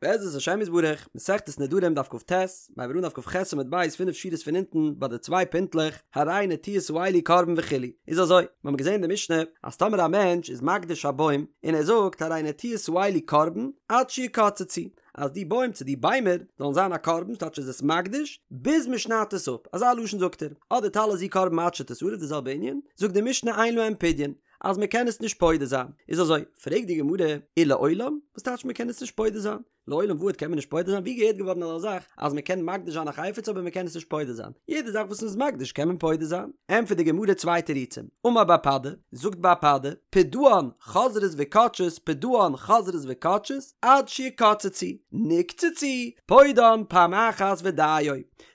בעזרת השם יתברך, מסכת נדרים דף כט, מ'הייבט אן דף כח עמוד ב' פינף שורות פון אונטן ביי די צוויי פינטלעך, הרי נטיעות האלו קרבן וכו', איז אזוי, מיר האבן געזען אין די משנה אז טאמער א מענטש איז מקדיש א בוים און ער זאגט הרי נטיעות האלו קרבן עד שיקצצו, אז די בוים צו די ביימער זאלן זיין א קרבן, ס'טייטש איז עס מקדיש ביז מען שניידט עס אפ, אזא לשון זאגט ער, אדער טלה זו קרבן עד שתשרף די זעלבע ענין, זאגט די משנה אין להם פדיון, אז מען קען עס נישט פודה זיין, איז אזוי, פרעגט די גמרא, ולעולם? וואס טייטש מען קען עס נישט פודה זיין? לעולם ועד קען מען נישט פודה זיין? ווי געהערט געווארן אזא זאך אז מען קען מקדיש זיין א חפץ אבער מען קען עס נישט פודה זיין? יעדע זאך וואס מען איז מקדיש קען מען פודה זיין. ענטפערט די גמרא צוויי תירוצים, אמר בר פדא, זאגט בר פדא, פדאן חוזרות וכותשות פדאן חוזרות וכותשות עד שיקצצו, נקצצו, פודן פעם אחת ודיו.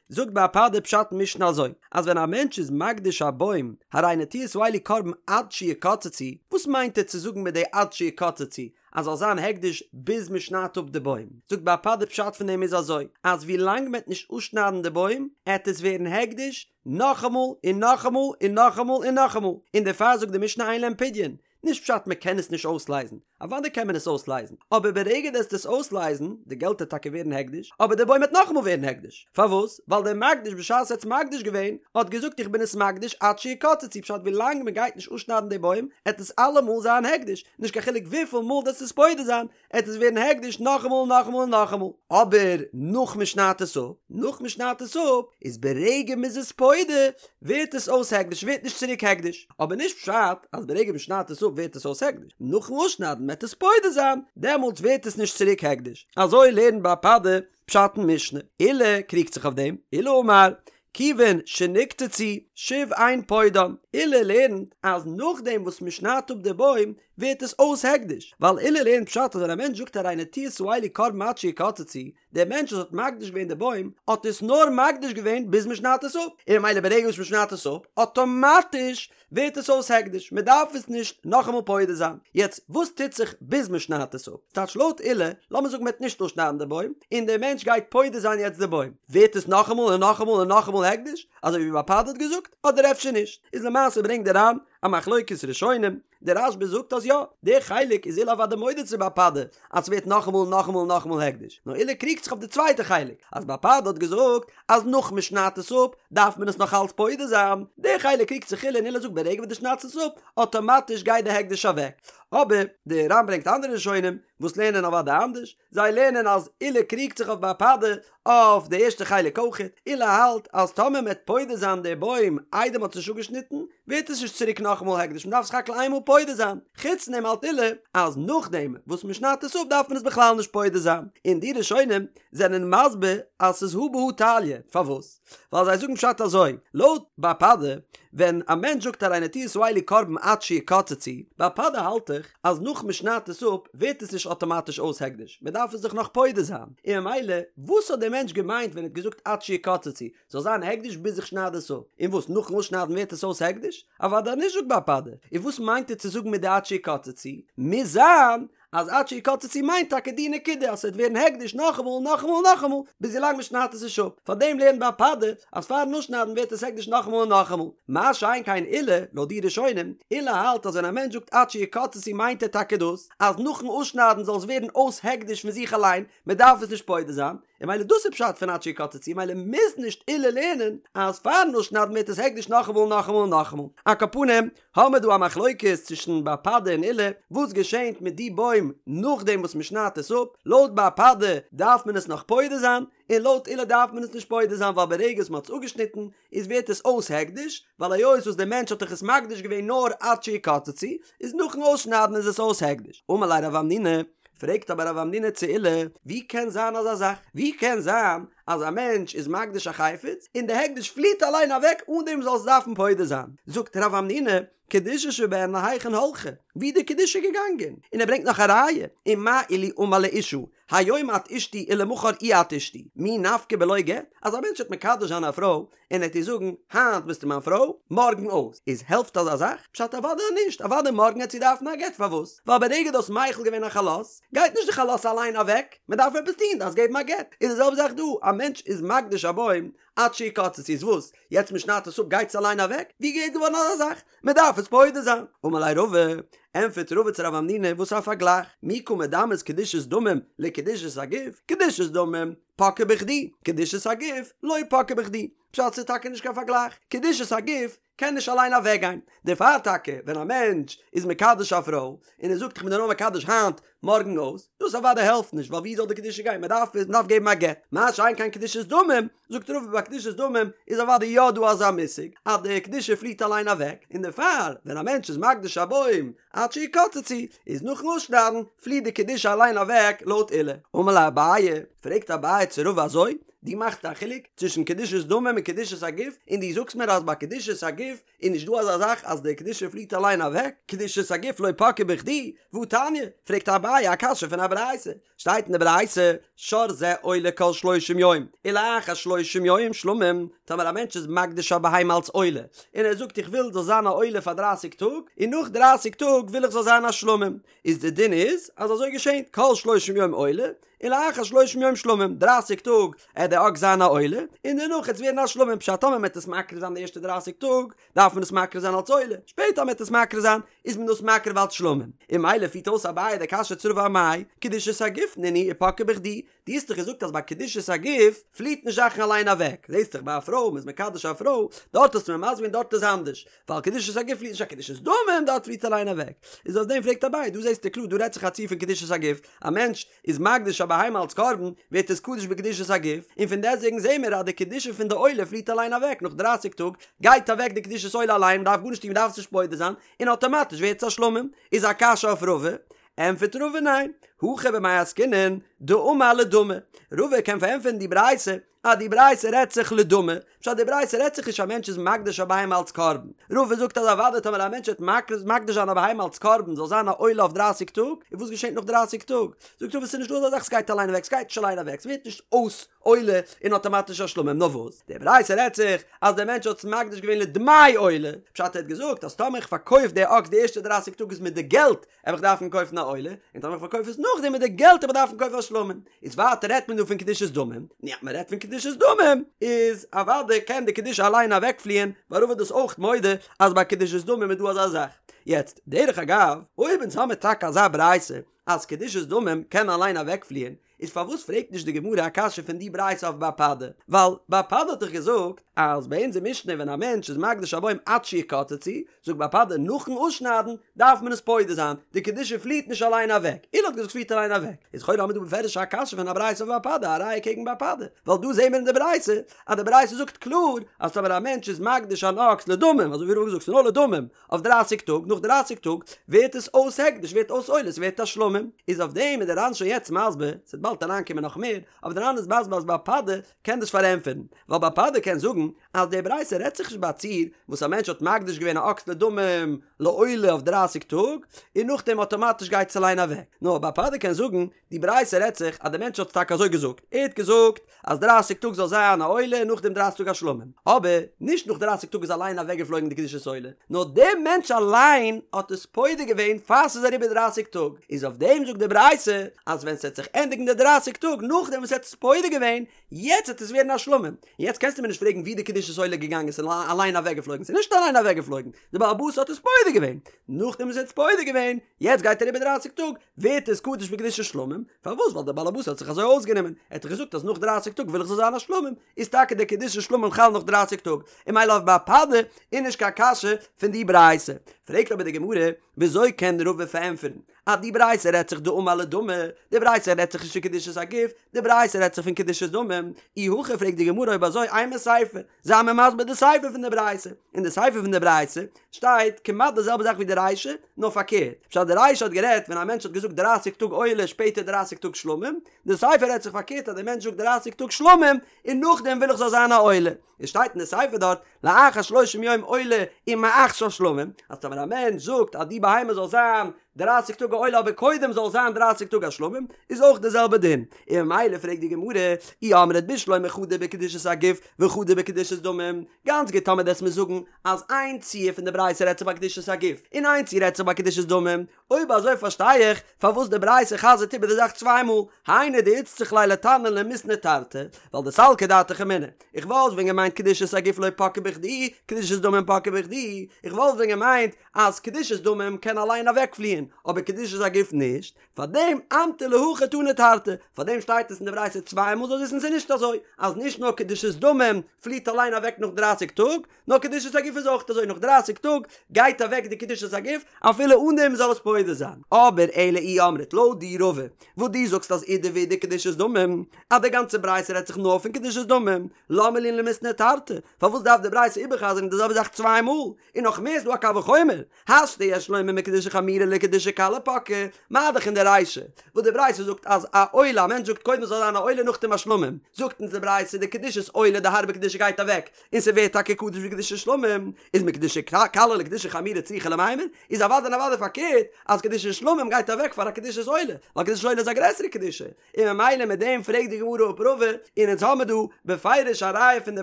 זאגט בר פדא פשט אין משנה אזוי, אז ווען א מענטש איז מקדיש א בוים, הרי נטיעות האלו קרבן עד שיקצצו, וואס מיינט ער צו זאגן מיט די עד שיקצצו, אז זאל זיין הקדש ביז מען שניידט אפ די בוים? זאגט בר פדא פשט פון דעם איז אזוי, אז ווי לאנג מען וועט נישט אפשניידן די בוים, עט עס ווערן הקדש נאכאמאל און נאכאמאל און נאכאמאל און נאכאמאל, און דערפאר זאגט די משנה אין להם פדיון, נישט פשט מען קען עס נישט אויסלייזן, אוודאי קען מען עס אויסלייזן, אבער ברגע דו עסט עס אויסלייזן, די געלט העט טאקע ווערן הקדש, אבער די בוים העט נאכאמאל ווערן הקדש. פארוואס? ווייל דער מקדיש בשעת ער האט עס מקדיש געווען, האט געזאגט איך בין עס מקדיש עד שיקצצו, פשט ווי לאנג מען גייט נישט אפשניידן די בוים, עט עס אלעמאל זיין הקדש, נישט קיין חילוק וויפיל מאל דו עסט עס פודה זיין, עט עס ווערן הקדש נאכאמאל און נאכאמאל און נאכאמאל. אבער נאך מען שניידט עס אפ, נאך מען שניידט עס אפ, איז ברגע מען איז עס פודה, ווערט עס אויס הקדש, ווערט נישט צוריק הקדש. אבער נישט פשט אז ברגע מען שניידט עס אפ ווערט עס אויס הקדש, נאכן אפשניידן מען עט עס פודה זיין, דעמאלטס ווערט עס נישט צוריק הקדש. אזוי לערנט בר פדא פשט אין משנה. עולא קריגט זיך אויף דעם, עולא אמר, כיוון שנקצצו שוב אין פודן, עולא לערנט אז נאכדעם וואס מען שניידט אפ די בוים ווערט עס אויס הקדש, ווייל עולא לערנט פשט אז ווען א מענטש זאגט הרי נטיעות האלו קרבן עד שיקצצו, דער מענטש וואס האט מקדיש געווען די בוים האט עס נאר מקדיש געווען ביז מען שניידט עס אפ, און ממילא ברגע וואס מען שניידט עס אפ אטאמאטיש ווערט עס אויס הקדש, מען דארף עס נישט נאכאמאל פודה זיין. יעצט וואס טוט זיך ביז מען שניידט עס אפ? ס'טייטש לויט עולא, לאמיר זאגן מען וועט נישט אפשניידן די בוים, און דער מענטש גייט פודה זיין יעצט די בוים, ווערט עס נאכאמאל און נאכאמאל און נאכאמאל הקדש, אזוי ווי בר פדא האט געזאגט, אדער אפשר נישט? איז למעשה ברענגט דער ר"ן א מחלוקת ראשונים, דער רשב"א זאגט אז יא, דער חלק איז עולא אוודאי מודה צו בר פדא אז ס'ווערט נאכאמאל און נאכאמאל און נאכאמאל הקדש, נאר עולא קריגט זיך אויף די צווייטע חלק, אז בר פדא האט געזאגט אז נאך מ'שניידט עס אפ דארף מען עס נאך אלץ פודה זיין, דער חלק קריגט זיך עולא און עולא זאגט ברגע וואס דו שניידסט עס אפ, אטאמאטיש גייט די הקדש אוועק. אבער דער ר"ן ברענגט אנדערע ראשונים וואס לערנען אוודאי אנדערש, זיי לערנען אז עולא קריגט זיך אויף בר פדא אויף די ערשטע חלק אויכעט, עולא האלט אז טאמער מען וועט פודה זיין די בוים איידער מען האט עס נישט אפגעשניטן ווערט עס נישט צוריק נאכאמאל הקדש מען דארף סך הכל איינמאל פודה זיין, חוץ דעם האלט עולא אז נאכדעם וואס מען שניידט עס אפ דארף מען עס בכלל נישט פודה זיין, און די ראשונים זענען מסביר אז ס'איז הא בהא תליא, פארוואס? ווייל זיי זאגן פשט אזוי, לויט בר פדא, ווען א מענטש זאגט הרי נטיעות האלו קרבן עד שיקצצו, בר פדא האלט דאך אז נאך מען שניידט עס אפ ווערט עס נישט אטאמאטיש אויס הקדש, מען דארף עס דאך נאך פודה זיין, און ממילא וואס האט דער מענטש געמיינט ווען ער האט געזאגט עד שיקצצו, זאל זיין הקדש ביז איך שנייד עס אפ, און וואס נאכן אויסשניידן ווערט עס אויס הקדש? אוודאי נישט זאגט בר פדא, און וואס מיינט ער צו זאגן מיט די עד שיקצצו? מוז זיין אז עד שיקצצו מיינט טאקע די נקודה אז ס'וועט ווערן הקדש נאכאמאל און נאכאמאל און נאכאמאל ביז ווילאנג מ'שניידט עס נישט אפ, פארדעם לערנט בר פדא אז פארן אפשניידן ווערט עס הקדש נאכאמאל און נאכאמאל, מה שאין כן עולא, לויט די ראשונים, עולא האלט אז ווען א מענטש זאגט עד שיקצצו מיינט ער טאקע דאס אז נאכן אפשניידן זאל עס ווערן אויס הקדש פון זיך אליין, מ'דארף עס נישט פודה זיין, און ממילא דאס איז פשט פון עד שיקצצו, ממילא מוז נישט עולא לערנען אז פארן אפשניידן ווערט עס הקדש נאכאמאל און נאכאמאל און נאכאמאל. על כל פנים, האמער דא א מחלוקת צווישן בר פדא און עולא, וואס געשענט מיט די בוים נאכדעם וואס מען שניידט עס אפ, לויט בר פדא דארף מען עס נאך פודה זיין, און לויט עולא דארף מען עס נישט פודה זיין ווייל ברגע וואס מען האט עס אפגעשניטן איז ווערט עס אויס הקדש, ווייל היות וואס דער מענטש האט דאך עס מקדיש געווען נאר עד שיקצצו, איז נאכן אויסשניידן איז עס אויס הקדש. אמר ליה רב המנונא, פרעגט אבער רב המנונא צו עולא, ווי קען זיין אזא זאך? ווי קען זיין אז א מענטש איז מקדיש א חפץ און די הקדש פליעט אליין אוועק אן דעם זאל עס דארפן פודה זיין? זאגט רב המנונא, קדושה שבהן להיכן הלכה, ווי די קדושה געגאנגען? און ער ברענגט נאך א ראיה, ומה אילו אמר לאשה, היום את אשתי ולמחר אי את אשתי, מי נפקא בלא גט? אז א מענטש וועט מקדש זיין א פרוי און ער וועט איר זאגן, היינט ביסטו מיין פרוי, מארגן אויס, איז העלפט אזא זאך? פשט אוודאי נישט, אוודאי מארגן וועט זי דארפן א גט, פארוואס? ווייל ברגע דו האסט מחיל געווען א חלות, גייט נישט די חלות אליין אוועק, מען דארף עפעס טון, דארפסט געבן א גט, איז די זעלבע זאך דא, א מענטש איז מקדיש א בוים, עד שיקצצו איז וואס? יעצט מען שניידט עס אפ גייט עס אליין אוועק? ווי געהערט געווארן אזא זאך? מען דארף עס פודה זיין. אמר ליה רבא, ענטפערט רבא צו רב המנונא וואס א פארגלייך, מי קא מדמית קדושת דמים לקדושת הגוף, קדושת דמים פקעה בכדי, קדושת הגוף לא פקעה בכדי, פשט ס'איז טאקע נישט קיין פארגלייך, קדושת הגוף קען נישט אליין אוועקגיין, דערפאר טאקע ווען א מענטש איז מקדש א פרוי און ער זאגט איך בין דיר נאר מקדש היינט מארגן אויס, דאס אוודאי העלפט נישט ווייל ווי זאל די קדושה גיין, מען דארף מען דארף געבן א גט, מה שאין כן קדושת דמים, זאגט רבא ביי קדושת דמים איז אוודאי יא דא אזא מושג אז די קדושה פליעט אליין אוועק, און דערפאר ווען א מענטש איז מקדיש א בוים עד שיקצצו, איז נאכן אפשניידן פליעט די קדושה אליין אוועק לויט עולא. אמר ליה אביי, פרעגט אביי צו רבא אזוי, דו מאכסט א חילוק צווישן קדושת דמים און קדושת הגוף, און דו זאגסט מיר אז ביי קדושת הגוף איז נישט דא אזא זאך אז די קדושה פליעט אליין אוועק, קדושת הגוף לא פקעה בכדי, והתניא, פרעגט אביי א קשיא פון א ברייתא, שטייט אין די ברייתא, שור זה עולה כל שלושים יום, ולאחר שלושים יום שלמים, טאמער א מענטש איז מקדיש א בהמה אלס עולה, און ער זאגט איך וויל זאל זיין א עולה פאר דרייסיג טאג, און נאך דרייסיג טאג וויל איך זאל זיין א שלמים, איז די דין איז אז אזוי געשענט, כל שלושים יום עולה, ולאחר שלושים יום שלמים, דרייסיג טאג עט די אקס זיין א עולה, און דערנאך עט עס ווערן א שלמים, פשט טאמער מ'עט עס מקריב זיין די ערשטע דרייסיג טאג, דארף מען עס מקריב זיין אלס עולה, שפעטער מ'עט עס מקריב זיין, איז מען דאס מקריב אלס שלמים, און ממילא פירט אויס אביי די קשיא צו רבא אמאי, קדושת הגוף נינהו ופקעה בכדי, דו האסט דאך געזאגט אז ביי קדושת הגוף פליעט נישט זאכן אליין אוועק, זעסט דאך ביי א פרוי, מ'איז מקדש א פרוי, דארט האסטו מיר מסביר געווען דארט איז אנדערש, ווייל קדושת הגוף פליעט נישט א קדושת דמים דארט פליעט אליין אוועק, איז אויף דעם פרעגט אביי, דא זעסטו קלאר דא רעדט זיך א ציור פון קדושת הגוף, א מענטש איז מקדיש א בהמה אלס קרבן, ווערט עס קדוש בקדושת הגוף, און פון דעסטוועגן זעהן מיר אז די קדושה פון די עולה פליעט אליין אוועק, נאך דרייסיג טאג גייט אוועק די קדושת עולה אליין, מ'דארף גארנישט טון מ'דארף עס נישט פודה זיין, און אטאמאטיש ווערט עס א שלמים, איז א קשיא אויף רבא, ענטפערט רבא ניין, הכא במאי עסקינן דאמר לדמי, רבא קען פארענטפערן די ברייתא אז די ברייתא רעדט זיך לדמי, פשט די ברייתא רעדט זיך נישט א מענטש איז מקדיש א בהמה אלץ קרבן, רבא זאגט אז אוודאי טאמער א מענטש וועט מקדיש זיין א בהמה אלץ קרבן זאל זיין א עולה אויף דרייסיג טאג, און וואס געשענט נאך דרייסיג טאג? זאגט רבא ס'איז נישט דא אזא זאך ס'גייט אליין אוועק, ס'גייט נישט אליין אוועק, ס'ווערט נישט אויס עולה און אטאמאטיש א שלמים, נאר וואס? די ברייתא רעדט זיך אז דער מענטש האט עס מקדיש געווען לדמי עולה, פשט ער האט געזאגט אז טאמער איך פארקויף די אקס די ערשטע דרייסיג טאג איז מיט די געלט וועל איך דארפן קויפן א עולה, און טאמער איך פארקויף עס נאכדעם מיט די געלט וועל איך דארפן קויפן א שלמים. איז ווייטער רעדט מען דא פון קדושת דמים, נו אז מען רעדט פון קדושת דמים איז אוודאי קען די קדושה אליין אוועקפליען, ווייל רבא איז דאס אויך מודה אז ביי קדושת דמים איז דא אזא זאך. יעצט, דרך אגב, אויב אונז האמיר טאקע אזא ברייתא אז קדושת דמים קען אליין אוועקפליען, איז פארוואס פרעגט נישט די גמרא א קשיא פון די ברייתא אויף בר פדא? ווייל בר פדא האט דאך געזאגט אז ביי אונזער משנה ווען א מענטש איז מקדיש א בוים עד שיקצצו, זאגט בר פדא נאכן אויסשניידן דארף מען עס פודה זיין, די קדושה פליעט נישט אליין אוועק, עולא האט געזאגט ס'פליעט אליין אוועק, איז לכאורה האמיר דא בפירוש א קשיא פון א ברייתא אויף בר פדא א ראיה קעגן בר פדא, ווייל דא זעהן מיר אין די ברייתא אז די ברייתא זאגט קלאר אז טאמער א מענטש איז מקדיש אן אקס לדמים, אזוי ווי רבא האט געזאגט ס'איז נאר לדמים, אויף דרייסיג טאג, נאך דרייסיג טאג ווערט עס אויס הקדש, ווערט אויס עולה, ס'ווערט א שלמים, איז אויף דעם איז די ר"ן שוין יעצט מסביר, ס'וועט באלד אריינקומען נאך מער, אבער די ר"ן איז מסביר אז בר פדא קען דאס פארענטפערן, ווייל בר פדא קען זאגן אז די ברייתא רעדט זיך נישט ביי א ציור וואס א מענטש האט מקדיש געווען א אקס לדמים לעולה אויף דרייסיג טאג, און נאכדעם אטאמאטיש גייט עס אליין אוועק, נאר בר פדא קען זאגן די ברייתא רעדט זיך אז די מענטש האט טאקע אזוי געזאגט, ער האט געזאגט אז דרייסיג טאג זאל זיין א עולה און נאכדעם דרייסיג טאג א שלמים, אבער נישט נאך דרייסיג טאג איז אליין אוועקגעפלויגן די קדושת עולה, נאר דער מענטש אליין האט עס פודה געווען פאר ס'איז אריבער דרייסיג טאג, איז אויף דעם זאגט די ברייתא אז ווען ס'וועט זיך ענדיגן די דרייסיג טאג נאכדעם וואס ער האט עס פודה געווען, יעצט וועט עס ווערן א שלמים, און יעצט קענסטו מיר נישט פרעגן ווי די קדושת עולה איז געגאנגען, ס'איז אליין אוועקגעפלויגן, ס'איז נישט אליין אוועקגעפלויגן, די בעל הבית האט עס פודה געווען, נאכדעם וואס ער האט עס פודה געווען, יעצט גייט אריבער דרייסיג טאג, ווערט עס קדוש בקדושת שלמים, פארוואס? ווייל דער בעל הבית האט זיך אזוי אויסגענומען, ער האט דאך געזאגט אז נאך דרייסיג טאג וויל איך זאל זיין א שלמים, איז טאקע דער קדושת שלמים חל נאך דרייסיג טאג, און ממילא אויף בר פדא איז נישט קיין קשיא פון די ברייתא. פרעגט אבער די גמרא, וויאזוי קען רבא פארענטפערן אז די ברייתא רעדט זיך דאמר לדמי, די ברייתא רעדט זיך נישט פון קדושת הגוף, די ברייתא רעדט זיך פון קדושת דמים, אי הכי פרעגט די גמרא אויב אזוי אימא סיפא, זיי מיר מסביר די סיפא פון די ברייתא, אין די סיפא פון די ברייתא שטייט כמעט די זעלבע זאך ווי די רישא, נאר פארקערט, פשט די רישא האט גערעדט ווען א מענטש האט געזאגט דרייסיג טאג עולה שפעטער דרייסיג טאג שלמים, די סיפא רעדט זיך פארקערט אז די מענטש זאגט דרייסיג טאג שלמים און נאכדעם וויל איך זאל זיין א עולה, עס שטייט אין די סיפא דארט לאחר שלושים יום עולה ומעכשיו שלמים, אז טאמער א מענטש זאגט אז די בהמה זאל זיין דרייסיג טאג א עולה אבער קודם זאל זיין דרייסיג טאג א שלמים, איז אויך די זעלבע דין, און ממילא פרעגט די גמרא, אי אמרת בשלמא חדא בקדושת הגוף וחדא בקדושת דמים, גאנץ גוט טאמער דו וועסט מיר זאגן אז איין ציור פון די ברייתא רעדט זיך ביי קדושת הגוף און איין ציור רעדט זיך ביי קדושת דמים, אויב אזוי פארשטיי איך פארוואס די ברייתא חזר'ט איבער די זאך צוויי מאל, היינו דאיצטריך ליה לתנא למיתני תרתי, ווייל דסלקא דעתך אמינא, איך וואלט ווען געמיינט קדושת הגוף לא פקעה בכדי, קדושת דמים פקעה בכדי, איך וואלט ווען געמיינט אז קדושת דמים קען אליין אוועקפליען, אבער קדושת הגוף נישט, פארדעם אמטו להכי תני תרתי, פארדעם שטייט עס אין די ברייתא צוויי מאל זאלסט וויסן ס'איז נישט אזוי אז נישט נאר קדושת דמים פליעט אליין אוועק נאך דרייסיג טאג, נאר קדושת הגוף איז אויך אזוי נאך דרייסיג טאג גייט אוועק די קדושת הגוף אפילו אן דעם מ'זאל עס פודה זיין. אבער אלא אי אמרת לויט דיר רבא וואס דו זאגסט אז אידי ואידי קדושת דמים אז די גאנצע ברייתא רעדט זיך נאר פון קדושת דמים למה לי למיתני תרתי פארוואס דארף די ברייתא איבערחזר'ן די זעלבע זאך צוויי מאל און נאך מער איז דא א קל וחומר השתא יש לומר מקדושה חמורה לקדושה קלה פקעה, מה דאך אין די רישא וואס די ברייתא זאגט אז א עולה, א מענטש זאגט קודם זאל זיין א עולה נאכדעם א שלמים, זאגט אונז די ברייתא די קדושת עולה די הארבע קדושה גייט אוועק און ס'ווערט טאקע קדוש ווי קדושת שלמים, איז מקדושה קלה לקדושה חמורה צריכא למימר, איז אוודאי און אוודאי פארקערט אז קדושת שלמים גייט אוועק פאר א קדושת עולה, ווייל קדושת עולה איז א גרעסערע קדושה, און ממילא מיט דעם פרעגט די גמרא אפ רבא, און אונז האמיר דא בפירוש א ראיה פון די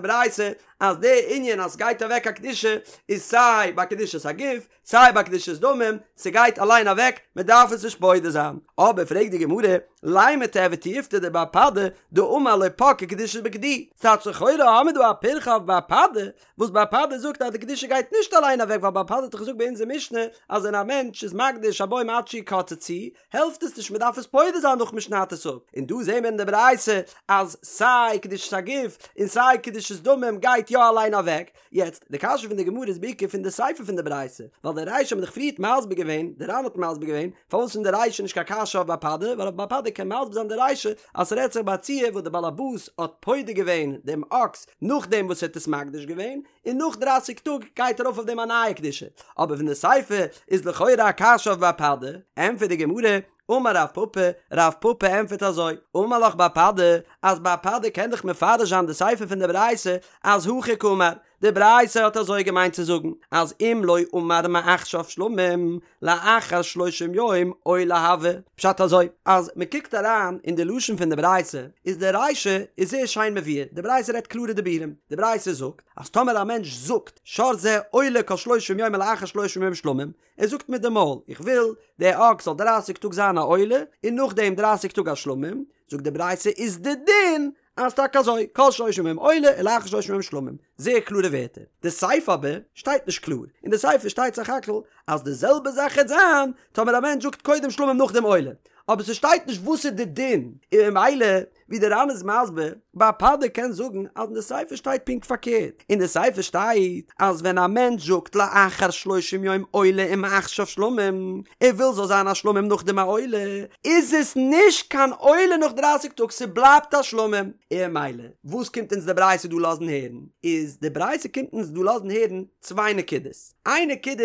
ברייתא אז די ענין אז סגייט אוועק א קדושה איז סיי ביי קדושת הגוף סיי ביי קדושת דמים, ס'גייט אליין אוועק מ'דארף עס נישט פודה זיין. אבער פרעגט די גמרא, לימא תיהוי תיובתא דבר פדא דאמר לא פקעה קדושה בכדי, ס'טייטש לכאורה האמיר דא א פירכא אויף בר פדא, וואס בר פדא זאגט אז די קדושה גייט נישט אליין אוועק ווייל בר פדא האט דאך געזאגט ביי אונזער משנה אז ווען א מענטש איז מקדיש א בוים עד שיקצצו העלפט עס נישט מ'דארף עס פודה זיין נאך מ'שניידט עס אפ, און דא זעהן מיר אין די ברייתא אז סיי קדושת הגוף און סיי קדושת דמים גייט יא אליין אוועק, יעצט די קשיא פון די גמרא איז בעיקר פון די סיפא פון די ברייתא, ווייל די רישא האט מען דאך פריערט מסביר געווען, די ר"ן האט מסביר געווען, פארוואס פון די רישא נישט קיין קשיא אויף בר פדא, ווייל אויף בר פדא קען מסביר זיין די רישא אז ס'רעדט זיך ביי א ציור וואס די בעל הבית האט פודה געווען דעם אקס נאכדעם וואס ער האט עס מקדיש געווען, און נאך דרייסיג טאג גייט ארויף אויף דעם א נייע קדושה, אבער פון די סיפא איז לכאורה א קשיא אויף בר פדא, ענטפערט די גמרא, אמר רב פפא, רב פפא ענטפערט אזוי, אמר לך בר פדא, אז בר פדא קען דאך מפרש זיין די סיפא פון די ברייתא אז הכי קאמר, די ברייתא האט אזוי געמיינט צו זאגן אז אם לא אמר מעכשיו שלמים לאחר שלושים יום עולה הוי, פשט אזוי, אז מען קוקט אריין אין די לשון פון די ברייתא איז די רישא איז זייער שיין מבואר, די ברייתא רעדט קלארע דיבורים, די ברייתא זאגט אז טאמער א מענטש זאגט שור זה עולה כל שלושים יום ולאחר שלושים יום שלמים, ער זאגט מיט די מויל איך וויל די אקס זאל דרייסיג טאג זיין א עולה און נאכדעם דרייסיג טאג א שלמים, זאגט די ברייתא איז די דין אז טאקע אזוי, כל שלושים יום עולה ולאחר שלושים יום שלמים, זייער קלארע ווערטער. די סיפא אבער שטייט נישט קלאר, אין די סיפא שטייט סך הכל אז די זעלבע זאך העט זיין טאמער א מענטש זאגט קודם שלמים נאכדעם עולה, אבער ס'שטייט נישט וואס איז די דין, און ממילא ווי די ר"ן איז מסביר, בר פדא קען זאגן אז אין די סיפא שטייט פונקט פארקערט, אין די סיפא שטייט אז ווען א מענטש זאגט לאחר שלושים יום עולה ומעכשיו שלמים, ער וויל זאל זיין א שלמים נאכדעם א עולה, איז עס נישט קיין עולה נאך דרייסיג טאג ס'בלייבט א שלמים, און ממילא וואס קומט אונז די ברייתא דא לאזן הערן, איז די ברייתא קומט אונז דא לאזן הערן צוויי נקודות, איין נקודה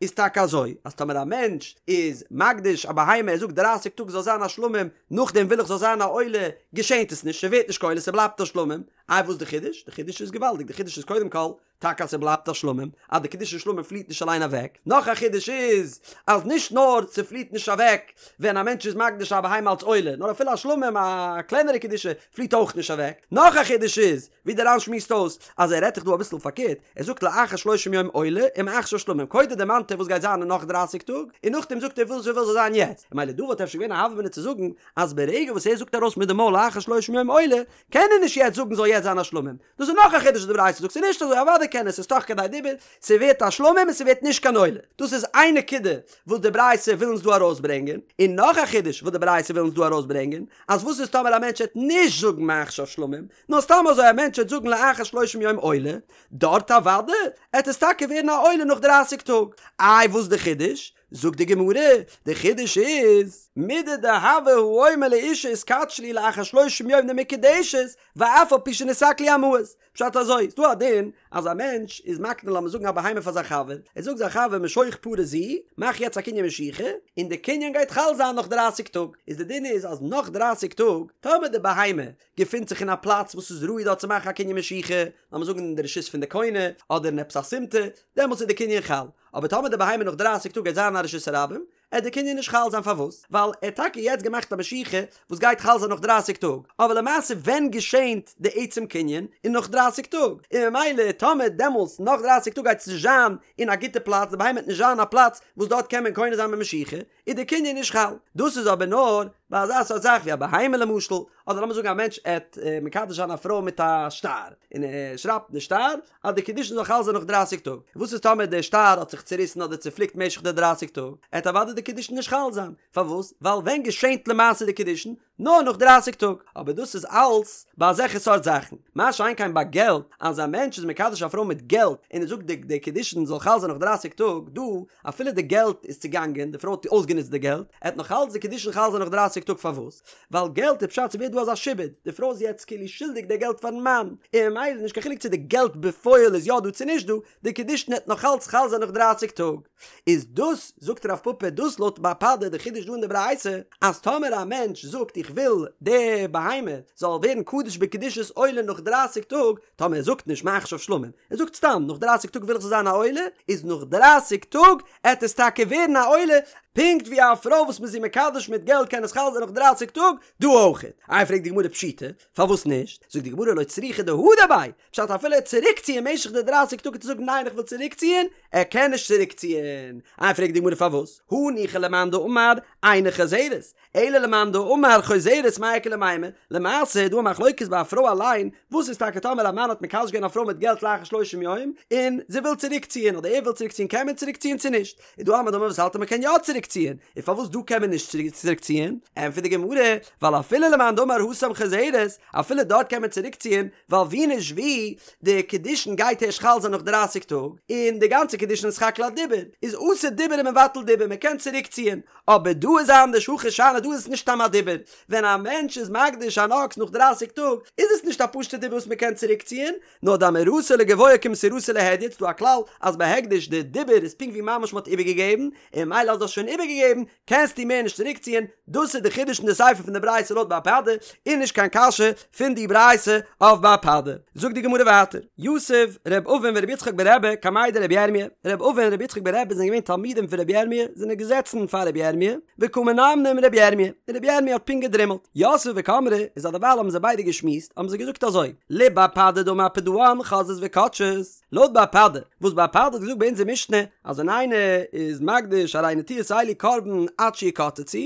איז טאקע אזוי אז טאמער א מענטש איז מקדיש א בהמה ער זאגט דרייסיג טאג זאל זיין א שלמים נאכדעם וויל איך זאל זיין א עולה געשענט עס נישט ס'ווערט נישט קיין עולה ס'בלייבט א שלמים, איי וואס די חידוש? די חידוש איז געוואלדיג די חידוש איז קודם כל טאקע אז ס'בלייבט א שלמים, אז די קדושת שלמים פליעט נישט אליין אוועק. נאך א חידוש איז, אז נישט נאר ס'פליעט נישט אוועק ווען א מענטש איז מקדיש א בהמה אלס עולה, נאר אפילו א שלמים, א קלענערע קדושה, פליעט אויך נישט אוועק. נאך א חידוש איז, ווי דער ר"ן שמועסט אויס, אז ער רעדט דאך דא אביסל פארקערט, ער זאגט לאחר שלושים יום עולה ומעכשיו שלמים, קודם דערמאנט ער וואס גייט זיין אין נאך דרייסיג טאג, און נאכדעם זאגט ער וואס ער וויל זאל זיין יעצט. ממילא דא וואלט אפשר געווען א הוה אמינא צו זאגן, אז ברגע וואס ער זאגט ארויס מיט די מויל לאחר שלושים יום עולה, קען ער נישט יעצט זאגן זאל יעצט זיין א שלמים. דאס איז נאך א חידוש וואס די ברייתא זאגט, ס'איז נישט אזוי, אוודאי קען ער, ס'איז תוך כדי דיבור, ס'ווערט א שלמים און ס'ווערט נישט קיין עולה. דאס איז איין נקודה וואס די ברייתא וויל אונז דא ארויסברענגען, און נאך א חידוש וואס די ברייתא וויל אונז דא ארויסברענגען, אז וואס איז טאמער א מענטש העט נישט זאגן מעכשיו שלמים, נאר סתם אזוי א מענטש העט זאגן לאחר שלושים יום עולה, דארט אוודאי העט עס טאקע ווערן א עולה נאך דרייסיג טאג. איי וואס די חידוש? זאגט די גמרא, די חידוש איז, מידי דהוה האומר לאשה התקדשי לי לאחר שלושים יום דמקודשת, ואף על פי שנתעקלו המעות. פשט אזוי, ס'דא א דין אז א מענטש איז מקנה לאמיר זאגן א בהמה פאר זיין חבר, ער זאגט זיין חבר משוך פרה זו, מאך יעצט א קנין משיכה, און די קנין גייט חל זיין נאך דרייסיג טאג, איז די דין איז אז נאך דרייסיג טאג, טאמער די בהמה געפינט זיך אין א פלאץ וואס איז ראוי דארט צו מאכן א קנין משיכה, לאמיר זאגן אין די רשות פון די קונה, אדער אין עפעס א סימטא, דעמאלטס איז די קנין חל. אבער טאמער די בהמה נאך דרייסיג טאג גייט זיין א רשות הרבים, עט די קנין נישט חל זיין פארוואס? ווייל ער האט טאקע יעצט געמאכט א משיכה וואס גייט חל זיין נאך דרייסיג טאג, אבער למעשה ווען געשענט די עצם קנין? איז נאך דרייסיג טאג, און ממילא טאמער דעמאלס נאך דרייסיג טאג גייט עס נישט זיין אין א גוטע פלאץ, די בהמה וועט נישט זיין אין א פלאץ וואס דארט קען מען קונה זיין במשיכה, איז די קנין נישט חל. דאס איז אבער נאר ביי אזא סארט זאך ווי א בהמה למשל, אדער לאמיר זאגן א מענטש עט מקדש זיין א פרוי מיט א שטר, און ער שרייבט אין די שטר אז די קידושין זאל חל זיין נאך דרייסיג טאג, וואס איז טאמער די שטר האט זיך צוריסן אדער צופליקט משך די דרייסיג טאג, עט אוודאי די קידושין נישט חל זיין, פארוואס? ווייל ווען געשענט למעשה די קידושין? נאר נאך דרייסיג טאג, אבער דאס איז אלס ביי אזעלכע סארט זאכן, מה שאין כן ביי געלט, אז א מענטש איז מקדש א פרוי מיט געלט און ער זאגט די די קידושין זאל חל זיין נאך דרייסיג טאג, דא אפילו די געלט איז צוגאנגען, די פרוי האט אויסגענוצט די געלט, עט נאך אלס די קידושין חל זיין נאך דרייסיג טאג, פארוואס? ווייל געלט איז פשט ס'ווערט דא אזא שעבוד, די פרוי איז יעצט כאילו שולדיג די געלט פארן מאן, און ממילא נישט קיין חילוק צו די געלט בפועל איז יא דא צו נישט דא, די קידושין עט נאך אלס חל זיין נאך דרייסיג טאג. איז דאס, זאגט רב פפא, דאס לויט בר פדא די חידוש דא אין די ברייתא, אז טאמער א מענטש זאגט איך וויל די בהמה זאל ווערן קדוש בקדושת עולה נאך דרייסיג טאג, טאמער ער זאגט נישט מעכשיו שלמים, ער זאגט סתם נאך דרייסיג טאג וויל איך זאל זיין א עולה, איז נאך דרייסיג טאג עט עס טאקע ווערן א עולה, פונקט ווי א פרוי וואס מ'איז זי מקדש מיט געלט קען עס חל זיין נאך דרייסיג טאג, דא אויכעט. איי פרעגט די גמרא פשיטא, פארוואס נישט? זאגט די גמרא לא צריכא דהדר ביה, פשט אפילו ער צוריקציען משך די דרייסיג טאג צו זאגן ניין איך וויל צוריקציען, ער קען נישט צוריקציען. איי פרעגט די גמרא פארוואס? הניחא למאן דאמר אינה חוזרת, אלא למאן דאמר חוזרת מאי איכא למימר, למעשה איז דא א מחלוקת ביי א פרוי אליין, וואס איז טאקע טאמער א מאן האט מקדש געווען א פרוי מיט געלט לאחר שלושים יום, און זי וויל צוריקציען אדער ער וויל צוריקציען קען מען צוריקציען צו נישט? איז דא א מאן דאמר וואס האלט אז מען קען יא צוריקציען, און פארוואס דא קען מען נישט צוריקציען? ענטפערט די גמרא, ווייל אפילו למאן דאמר התם חוזרת, אפילו דארט קען מען צוריקציען, ווייל ווי נישט ווי, די קידושין גייט ערשט חל זיין נאך דרייסיג טאג, און די גאנצע קידושין איז סך הכל א דיבור, איז אתי דיבור ומבטל דיבור, מען קען צוריקציען, אבער דא איז אנדערש הכא שאני דא איז עס נישט סתם א דיבור, ווען א מענטש איז מקדיש אן אקס נאך דרייסיג טאג, איז עס נישט א פשוטע דיבור וואס מען קען צוריקציען, נאר דאמירתו לגבוה כמסירתו להדיוט, ס'דא א כלל אז ביי הקדש די דיבור איז פונקט ווי ממש מ'האט איבערגעגעבן, און ממילא אז דו האסט שוין איבערגעגעבן קענסטו מער נישט צוריקציען, דאס איז די חידוש אין די סיפא פון די ברייתא לויט בר פדא, און נישט קיין קשיא פון די ברייתא אויף בר פדא. זאגט די גמרא ווייטער, יתיב ר' אבין ור' יצחק ברבי קמיה דרבי ירמיה, ר' אבין און ר' יצחק ברבי זענען געווען תלמידים פון רבי ירמיה, זענען געזעצן פאר רבי ירמיה, וקא מנמנם רבי ירמיה, און רבי ירמיה האט פונקט געדרימלט. יתבי וקאמרי, איז א דערווייל האבן זיי ביידע געשמועסט, האבן זיי געזאגט אזוי, לבר פדא דאמר פדאן חוזרות וקודשות, לויט בר פדא, וואס בר פדא האט געזאגט ביי אונזער משנה, אז ווען איינער איז מקדיש הרי נטיעות אלו קרבן עד שיקצצו,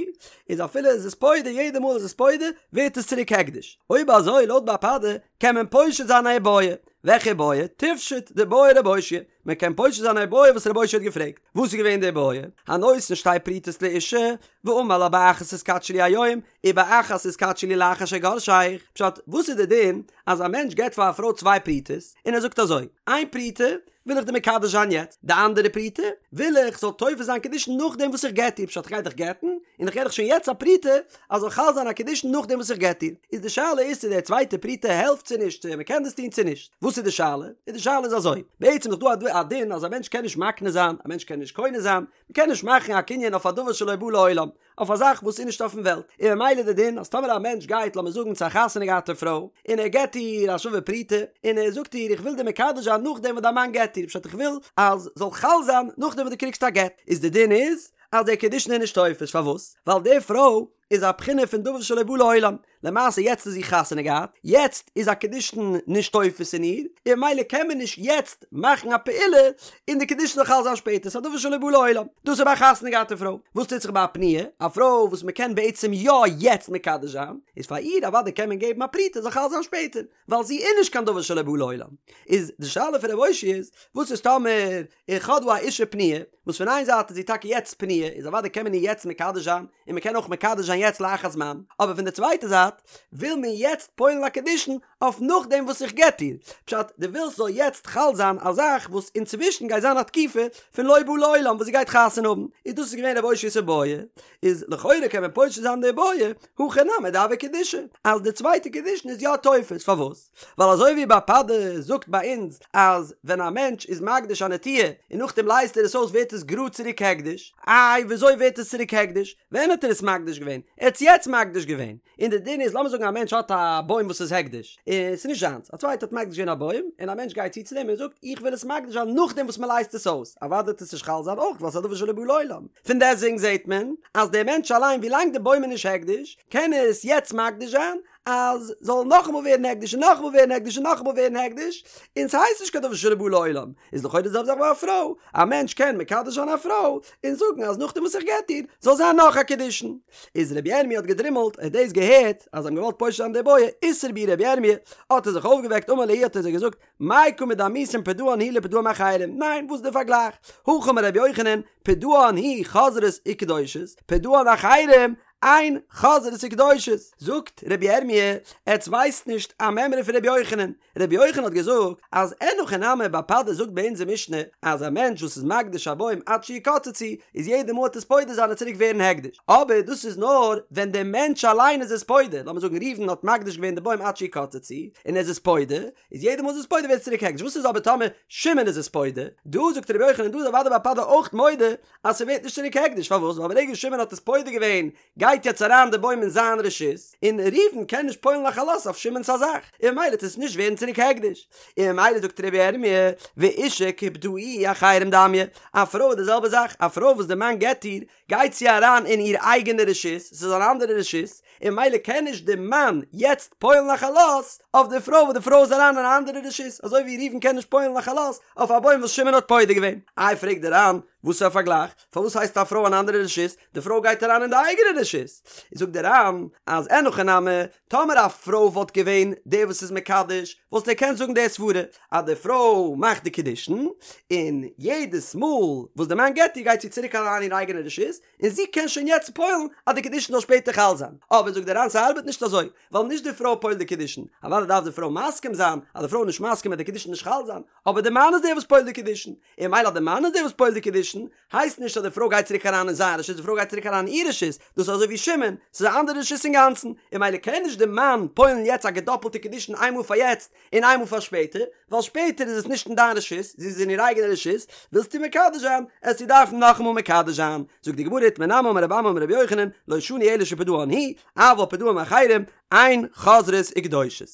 איז אפילו איז עס פודה יעדע מאל איז עס פודה, ווערט עס צוריק הקדש. אויב אזוי לויט בר פדא, קען מען פושט זיין א איבעיא. וועלכע איבעיא? תפשוט דבעי רב אושעיא. מען קען פושט זיין א איבעיא וואס רב אושעיא האט געפרעגט. וואס איז געווען די איבעיא? הנותן שתי פרוטות לאשה, ואמר לה באחת התקדשי לי היום, ובאחת התקדשי לי לאחר שאגרשך. פשט, וואס איז די דין אז א מענטש געבט פאר א פרוי צוויי פרוטות, און ער זאגט אזוי, איין פרוטה וויל איך דיר מקדש זיין יעצט, די אנדערע פרוטה וויל איך זאל תופס זיין קידושין נאכדעם וואס איך גט דיר, פשט איך גיי דיך גט'ן, און איך געב דיך שוין יעצט א פרוטה אז זאל חל זיין א קידושין נאכדעם וואס איך גט דיר. איז די שאלה איז צו די צווייטע פרוטה העלפט צו נישט, צו מען קען דאס טון צו נישט. וואס איז די שאלה? איז די שאלה איז אזוי, בעצם איז דאך דא א דין אז א מענטש קען נישט מקנה זיין, א מענטש קען נישט קונה זיין, מען קען נישט מאכן א קנין אויף א דבר שלא בא לעולם, אויף א זאך וואס איז נישט אויפן וועלט, און ממילא די דין אז טאמער א מענטש גייט לאמיר זאגן צו א חתונה געהאטע פרוי, און ער געט איר א שווה פרוטה, און ער זאגט איר איך וויל דיר מקדש זיין נאכדעם וואס דיין מאן גט דיר, פשט איך וויל אז זאל חל זיין נאכדעם וואס דו קריגסט א גט, איז די דין איז אז דער קידושין איז נישט תופס, פארוואס? ווייל די פרוי איז א בחינה פון דבר שלא בא לעולם, למעשה יעצט איז זי חתונה געהאט, יעצט איז א קידושין נישט תופס אין איר, און ממילא קען מען נישט יעצט מאכן א פעולה און די קידושין זאל חל זיין שפעטער, ס'איז א דבר שלא בא לעולם. דאס איז ביי א חתונה געהאטע פרוי. וואס טוט זיך ביי א פנויה, א פרוי וואס מ'קען בעצם יא יעצט מקדש זיין, איז פאר איר אוודאי קען מען געבן א פרוטה זאל חל זיין שפעטער, ווייל זי איז נישט קיין דבר שלא בא לעולם. איז די שאלה פון רב אושעיא איז, וואס איז טאמער איך האב דא א אישה פנויה, וואס פון איין זייט איז זי טאקע יעצט פנויה, איז אוודאי קען מען איר יעצט מקדש זיין, און מען קען אויך מקדש זיין יעצט לאחר זמן, אבער פון די צווייטע זייט וויל מען יעצט פועל'ן א קידושין אויף נאכדעם וואס איך גט איר, פשט דו ווילסט זאל יעצט חל זיין א זאך וואס אינצווישן גייט זיין א תקופה פון לא בא לעולם וואס זי גייט חתונה האבן, איז דאס איז געווען רב אושעיא'ס איבעיא, איז לכאורה קען מען פושט זיין די איבעיא, הכא נמי דהוה קידושי, אז די צווייטע קידושין איז יא תופס, פארוואס? ווייל אזוי ווי בר פדא זאגט ביי אונז אז ווען א מענטש איז מקדיש א נטיעה און נאכדעם לייזט ער עס אויס ווערט עס גראד צוריק הקדש, איי וויאזוי ווערט עס צוריק הקדש? ווען האט ער עס מקדיש געווען? ער האט עס יעצט מקדיש געווען, און די דין דין איז לאמיר זאגן א מענטש האט א בוים וואס איז הקדש, און ס'איז נישט זיינס, א צווייטער האט מקדיש געווען א בוים, און א מענטש גייט צו צו דעם און זאגט איך וויל עס מקדיש זיין נאכדעם וואס מ'לייזט עס אויס, אוודאי וועט עס נישט חל זיין אויך ווייל ס'איז א דבר שלא בא לעולם. פון דעסטוועגן זעט מען אז דער מענטש אליין ווילאנג די בוים איז נישט הקדש, קען ער עס יעצט מקדיש זיין, אז זאל נאכאמאל ווערן הקדש און נאכאמאל ווערן הקדש און נאכאמאל ווערן הקדש, און ס'הייסט נישט קיין דבר שלא בא לעולם, איז לכאורה די זעלבע זאך ביי א פרוי, א מענטש קען מקדש זיין א פרוי און זאגן אז נאכדעם וואס איך גט איר זאל זיין נאך א קידושין. איז רבי ירמי' האט געדרימלט, ער האט דאס געהערט אז זיי האבן געוואלט פושט זיין די בעיא, אתער בהו רבי ירמי', האט ער זיך אויפגעוועקט אמר להו האט ער זיי געזאגט, מאי קא מדמיתון פדאן הוא לפדאן מאחרים, ניין וואס איז די פארגלייך, הכי אמר רבי יוחנן, פדאן הוא חוזרות וקדושות, פדאן אחרים, אין חוזרות וקדושות, זאגט רבי ירמי', עטס ווייסט נישט א מימרא פון רבי יוחנן, רבי יוחנן האט געזאגט אז אין הכי נמי בר פדא זאגט ביי אונזער משנה אז א מענטש וואס איז מקדיש א בוים עד שיקצצו איז יעדע מאל ער וועט עס פודה זיין וועט צוריק ווערן הקדש, אבער דאס איז נאר ווען דער מענטש אליין איז עס פודה, לאמיר זאגן ראובן האט מקדיש געווען די בוים עד שיקצצו און ער איז עס פודה, איז יעדע מאל איז עס פודה ווערט עס צוריק הקדש, וואס איז אבער טאמער שמעון איז עס פודה? דא זאגט רבי יוחנן דא איז אוודאי בר פדא אויך מודה אז ס'ווערט נישט צוריק הקדש, פארוואס? ווייל ברגע שמעון האט עס פודה געווען גייט יעצט אריין די בוים אין זיין רשות, און ראובן קען נישט פועל'ן א חלות אויף שמעון'ס א זאך, און ממילא וועט עס נישט ווערן צוריק הקדש. און ממילא זאגט רבי ירמי', ואשה כפדאוה אחרים דמיא, א פרוי איז די זעלבע זאך, א פרוי וואס די מאן גט איר, גייט זי אריין אין איר אייגענע רשות, ס'איז אן אנדערע רשות, און ממילא קען נישט די מאן יעצט פועל'ן א חלות אויף די פרוי וואס די פרוי איז אריין אין א אנדערע רשות, אזוי ווי ראובן קען נישט פועל'ן א חלות אויף א בוים וואס שמעון האט פודה געווען. איי פרעגט דער ר"ן, וואס איז א פארגלייך? פארוואס הייסט א פרוי אן אנדערע רשות? די פרוי גייט אריין אין די אייגענע רשות. זאגט דער ר"ן אז אין הכי נמי, טאמער א פרוי וואלט געווען דער וואס איז מקדש, וואלסטו געקענט זאגן די סברה אז די פרוי מאכט די קידושין, און יעדעס מאל וואס די מאן גט איר גייט זי צוריק אריין אין איר אייגענע רשות, און זי קען שוין יעצט פועל'ן אז די קידושין זאל שפעטער חל זיין. אבער זאגט דער ר"ן ס'ארבעט נישט אזוי, ווייל נישט די פרוי פועל'ט די קידושין, אוודאי דארף די פרוי מסכים זיין, אז די פרוי איז נישט מסכים וועט די קידושין נישט חל זיין, אבער די מאן איז דער וואס פועל'ט די קידושין, און ממילא אז די מאן איז דער וואס פועל'ט די קידושין, הייסט נישט אז די פרוי גייט צוריק אריין אין זיין רשות, די פרוי גייט צוריק אריין אין איר רשות, דאס איז אזוי ווי שמעון, ס'איז א אנדערע רשות אינגאנצן, און ממילא קען נישט די מאן פועל'ן יעצט א געדאפלטע קידושין איינמאל פאר יעצט און איינמאל פאר שפעטער, ווייל שפעטער איז עס נישט אין דיין רשות, זי איז אין איר אייגענע רשות, ווילסטו מקדש זיין, עסטו דארפן נאכאמאל מקדש זיין. זאגט די גמרא איתמר נמי אמר רבי אמי אמר רבי יוחנן, לא שנו אלא שפדאן הוא, אבל פדאום אחרים, אין חוזרות וקדושות.